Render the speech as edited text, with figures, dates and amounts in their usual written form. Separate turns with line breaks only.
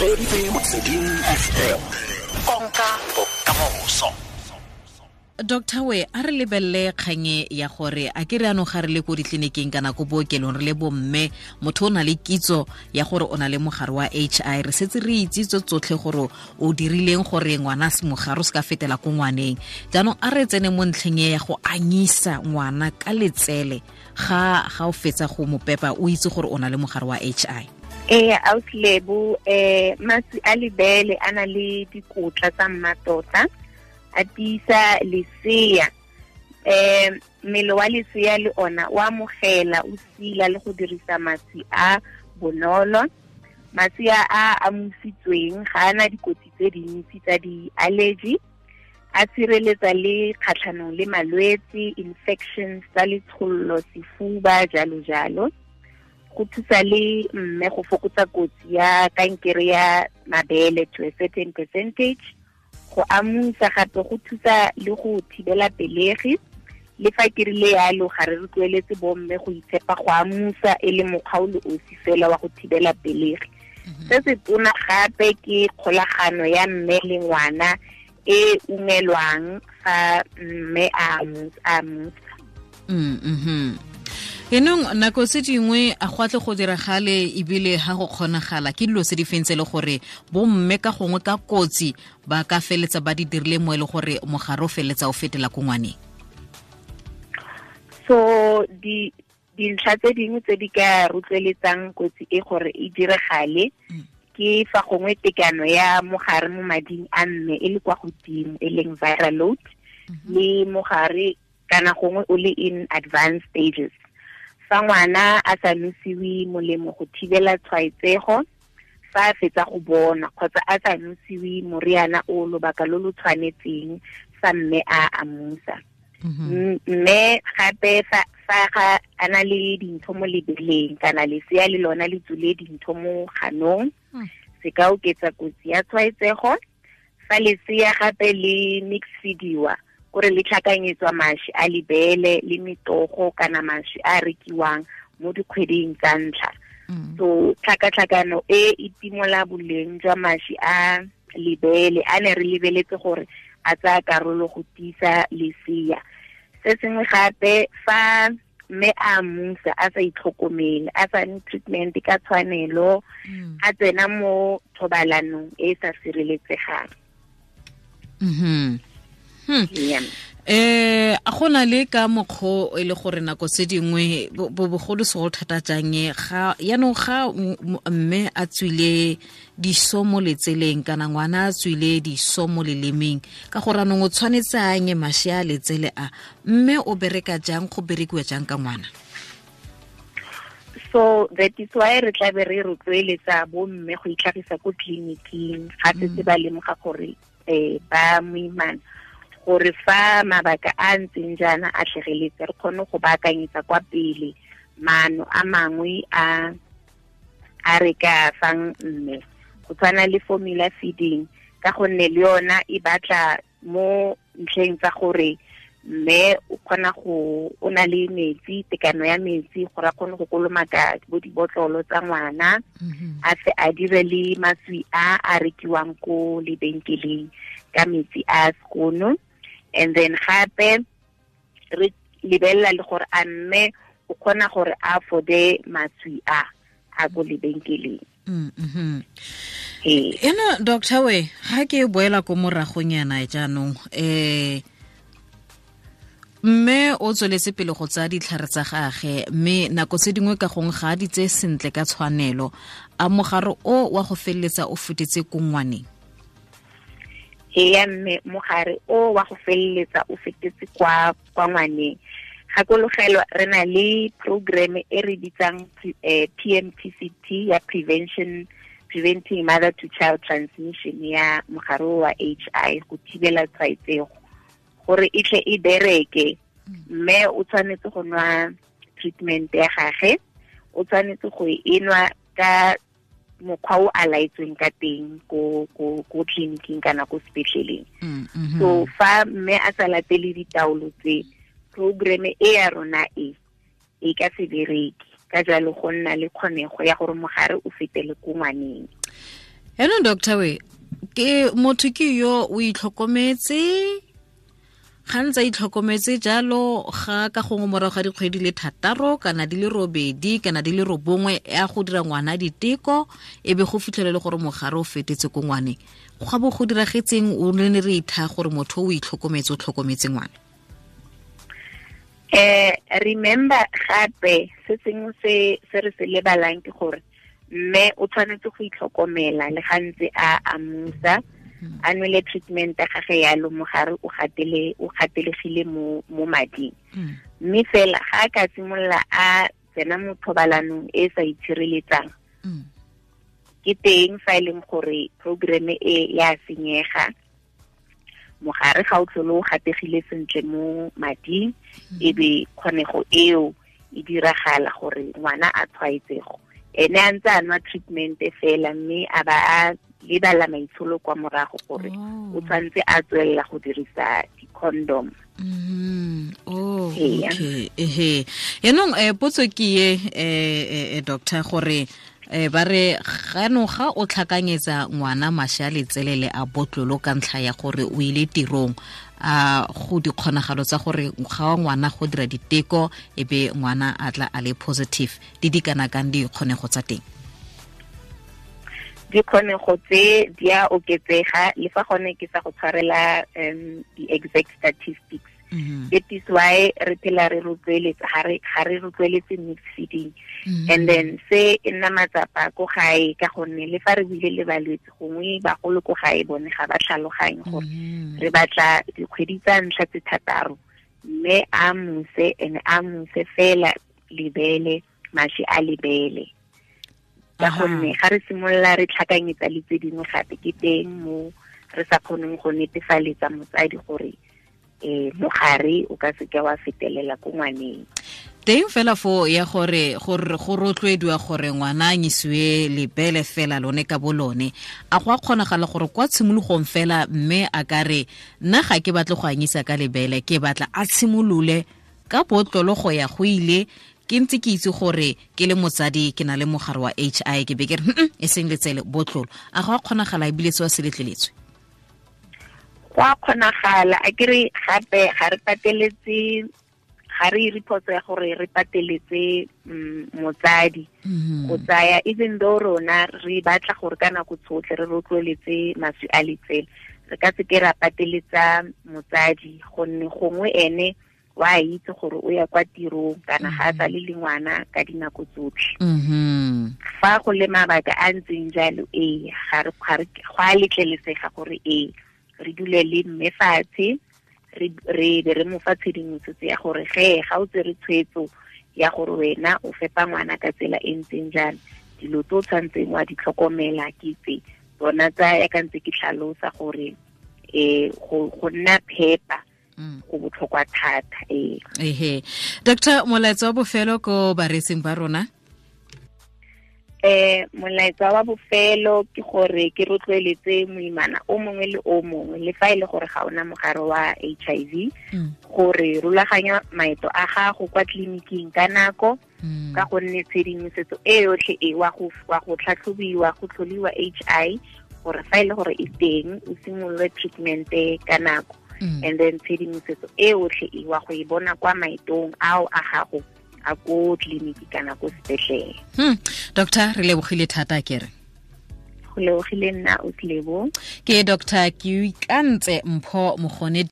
Reditse Motsweding FM. Konka bokamoso.
Doctor we a re lebelele kganye ya gore a ke re anong ga re le ko ditleliniking kana ko bookelong re le bomme, motho o na le kitso ya gore o na le mogare wa HI, re setse re itse tso tsotlhe gore o dirileng gore ngwana se mogare o se ka fetela ko ngwaneng. Jaanong a re tsene mo ntlheng e ya go anyisa ngwana ka letsele ga o fetsa go mo pepa, o itse gore o na le mogare wa HI.
Ee, autlebo, maswi a lebele a na le dikotla tsa mmatota, a tiisa lesea. Mmele wa lesea le ona o amogela, o sila le go dirisa maswi a bonolo. Maswi a a amusitsweng ga ana dikotsi tse dintsi tsa di-allergy, a tshireletsa le kgatlhanong le malwetse, infections tsa letshollo, sefuba, jalo jalo. Go thusa le mme go fokotsa kotsi ya kankere ya mabele to a certain percentage. Go amusa gape go thusa le go thibela pelegi. Le fa ke rile yalo, ga re rotloeletse bomme go itshepa go amusa e le mokgwa o le osi fela wa go thibela pelegi. Se se tona gape ke kgolagano ya mme le ngwana e ungelwang fa mme a amusa.
Enong nako tse dingwe a go atle go diragale ebile ha go kgonagala ke dilo tse di feng tse le gore bomme ka gongwe ka kotsi ba ka feletsa ba di dirile mo e le gore mogare o feletsa o fetela ko ngwaneng?
So dintlha tse dingwe tse di ka rotloeletsang kotsi e gore e diragale ke fa gongwe tekano ya mogare mo mading a mme e le kwa godimo, e leng viral load, le mogare kana gongwe o le in advanced stages. Fa ngwana a sa nosiwe molemo go thibela tshwaetsego fa a fetsa go bona, kgotsa a sa nosiwe moriana o lobaka lo lo tshwanetseng fa mme a amusa. Mme gape fa ga a na le dintho mo lebeleng kana lesea le lona le tswile dintho mo ganong, se ka oketsa kotsi ya tshwaetsego. Fa lesea gape le mix feediwa, kore le tlhakanyetswa mašwi a lebele le metogo kana mašwi a rekiwang mo dikgweding tsa ntlha. So tlhakatlhakano e e timola boleng jwa mašwi a lebele a ne re lebeletse gore a tsaya karolo go tiisa lesea. Se sengwe gape, fa mme a amusa a sa itlhokomele, a sa nwe treatment ka tshwanelo, a tsena mo thobalanong e e sa sireletsegang.
A gona le ka mokgwa e le gore nako tse dingwe bogolo segolo thata jang ga yaanong ga mme a tswile diso mo letseleng kana ngwana a tswile diso mo lelemeng, ka gore anong o tshwanetse a anye mašwi a letsele a, mme o bereka jang, go berekiwa jang ka ngwana?
So that is why re tla be re rotloeletsa bomme go itlhagisa ko tleliniking ga setse ba lemoga gore ba moimana, gore fa mabaka a ntseng jaana a tlhageletse re kgone go baakanyetsa kwa pele maano a mangwe a re ka fang mme, go tshwana le formula feeding, ka gonne le yona e batla mo ntlheng tsa gore mme o kgona go, o na le metsi, tekano ya metsi, gore a kgone go kolomaka bo dibotlolo tsa ngwana, a se a dire le maswi a a rekiwang ko lebenkeleng ka metsi a sekono. And then gape re lebelela le gore a mme o kgona gore a afforde maswi a a ko lebenkeleng.
Eno doctor we, ga ke boela ko moragonyana jaanong, mme o tsweletse pele go tsaya ditlhare tsa gagwe, mme nako tse dingwe ka gongwe ga a di tseye sentle ka tshwanelo, a mogare o wa go feleletsa o fetetse ko ngwaneng?
Ee, mme mogare o wa go feleletsa o fetetse kwa ngwaneng. Gakologelwa re na le program e re bitsang PMTCT ya preventing mother to child transmission ya mogare wa HI, go thibela tshwaetsego gore e tle e bereke. Mme o tshwanetse go nwa treatment ya gagwe, o tshwanetse go e nwa ka mokgwa o a laetsweng ka teng ko tleliniking kana ko sepetleleng. So fa mme a sa latele ditaolo tse, program e ya rona e ka se bereke. Ka jalo go nna le kgonego ya gore mogare o fetele ko ngwaneng.
Yaanong doctor we, ke motho ke yo o itlhokometse, ga ntse a itlhokometse jalo, ga ka gongwe morago ga dikgwedi le 6 kana di le 8 kana di le 9 ya go dira ngwana diteko, e be go fitlhelele gore mogare o fetetse ko ngwaneng. Ga bo go diragetseng o ne re itha gore motho o itlhokometse, o tlhokometse ngwana?
Remember gape se sengwe se re se lebalang ke gore mme o tshwanetse go itlhokomela le ga ntse a amusa, a nwele treatment ya gage yalo, mogare o gatelegile mo mading. Mme fela ga a ka simolola a tsena mo thobalanong e sa itshireletsang, ke teng fa e leng gore program e ya senyega, mogare ga o tlhole o gategile sentle mo mading, e be kgonego eo e diragala gore ngwana a tshwaetsego. Ene a ntse a nwa treatment fela, mme a ba a lebala maitsholo kwa morago gore o tshwanetse a tswelela go dirisa di-condom.
Okay. Ehe. Yaanong potso ke ye, doctor, gore ba re ganong ga o tlhakanyetsa ngwana mashi a letselele a botlolo ka ntlha ya gore o ile tirong, a go dikgonagalo tsa gore ga wa ngwana go dira diteko e be ngwana a tla a le positive, di kana kang dikgonego tsa teng?
Dikgonego tse di a oketsega, le fa gone ke sa go tshwarela di-exact statistics. That is why re phela re rotloeletsa, ga re rotloeletse mixed feeding. And then se e nna matsapa ko gae, ka gonne le fa re buile le balwetse, gongwe bagolo ko gae bone ga ba tlhaloganye gore re batla dikgwedi tsa ntlha tse 6, mme a muse, ene a muse fela lebele, mashi a lebele. Ka gonne ga re simolola re tlhakanyetsa le tse dingwe gape, ke teng mo re sa kgoneng go netefaletsa motsadi gore mogare o ka seke wa fetelela ko ngwaneng.
Teng fela fo ya gore go rotloediwa gore ngwana a nyisiwe lebele fela lone ka bolone, a go a kgonagala gore kwa tshimologong fela mme a ka re nna ga ke batle go anyisa ka lebele, ke batla a tshimolole ka botlolo go ya go ile, ke ntse ke itse gore ke le motsadi ke na le mogare wa HI, ke be ke re e seng letsele, botlolo. A go a kgonagala ebile se wa se letleletswe?
Go a kgonagala. A ke re gape ga re pateletse, ga re ire phoso ya gore re pateletse motsadi go tsaya, even though rona re batla gore ka nako tsotlhe re rotloeletse maswi a letsele, re ka se ke ra pateletsa motsadi, gonne gongwe ene wa itse gore o ya kwa tirong kana ga a sa le le ngwana ka dinako tsotlhe. Fa go le mabaka a ntseng jalo, ee, ga go a letlelesega gore ee re dule le mme fatshe, re be re mo fa tshedimosetso ya gore ge ga o tsere tshwetso ya gore wena o fepa ngwana ka tsela e ntseng jang, dilo tse o tshwanetseng wa di tlhokomela ke tse tsona tsa ya ka ntse ke tlhalosa gore go nna phepa go botlhokwa thata.
Ehe. Doctor, molaetsa wa bofelo ko bareetsing ba rona?
Molaetsa wa bofelo ke gore ke rotloeletse moimana o mongwe le o mongwe, le fa e le gore ga ona mogare wa HIV, gore rulaganya maeto a gago kwa tleliniking ka nako, ka gonne tshedimosetso e yotlhe e wa go tlhatlhobiwa, go tlholiwa HI, gore fa e le gore e teng o simolole treatment ka nako. And then tshedimosetso e yotlhe e wa go e bona kwa maetong ao a gago a ko tleliniki kana ko sepetlele.
Doctor, re lebogile thata kere.
Go lebogile nna o tlebo.
Ke Dr. Keoikantse Mpho Mogone.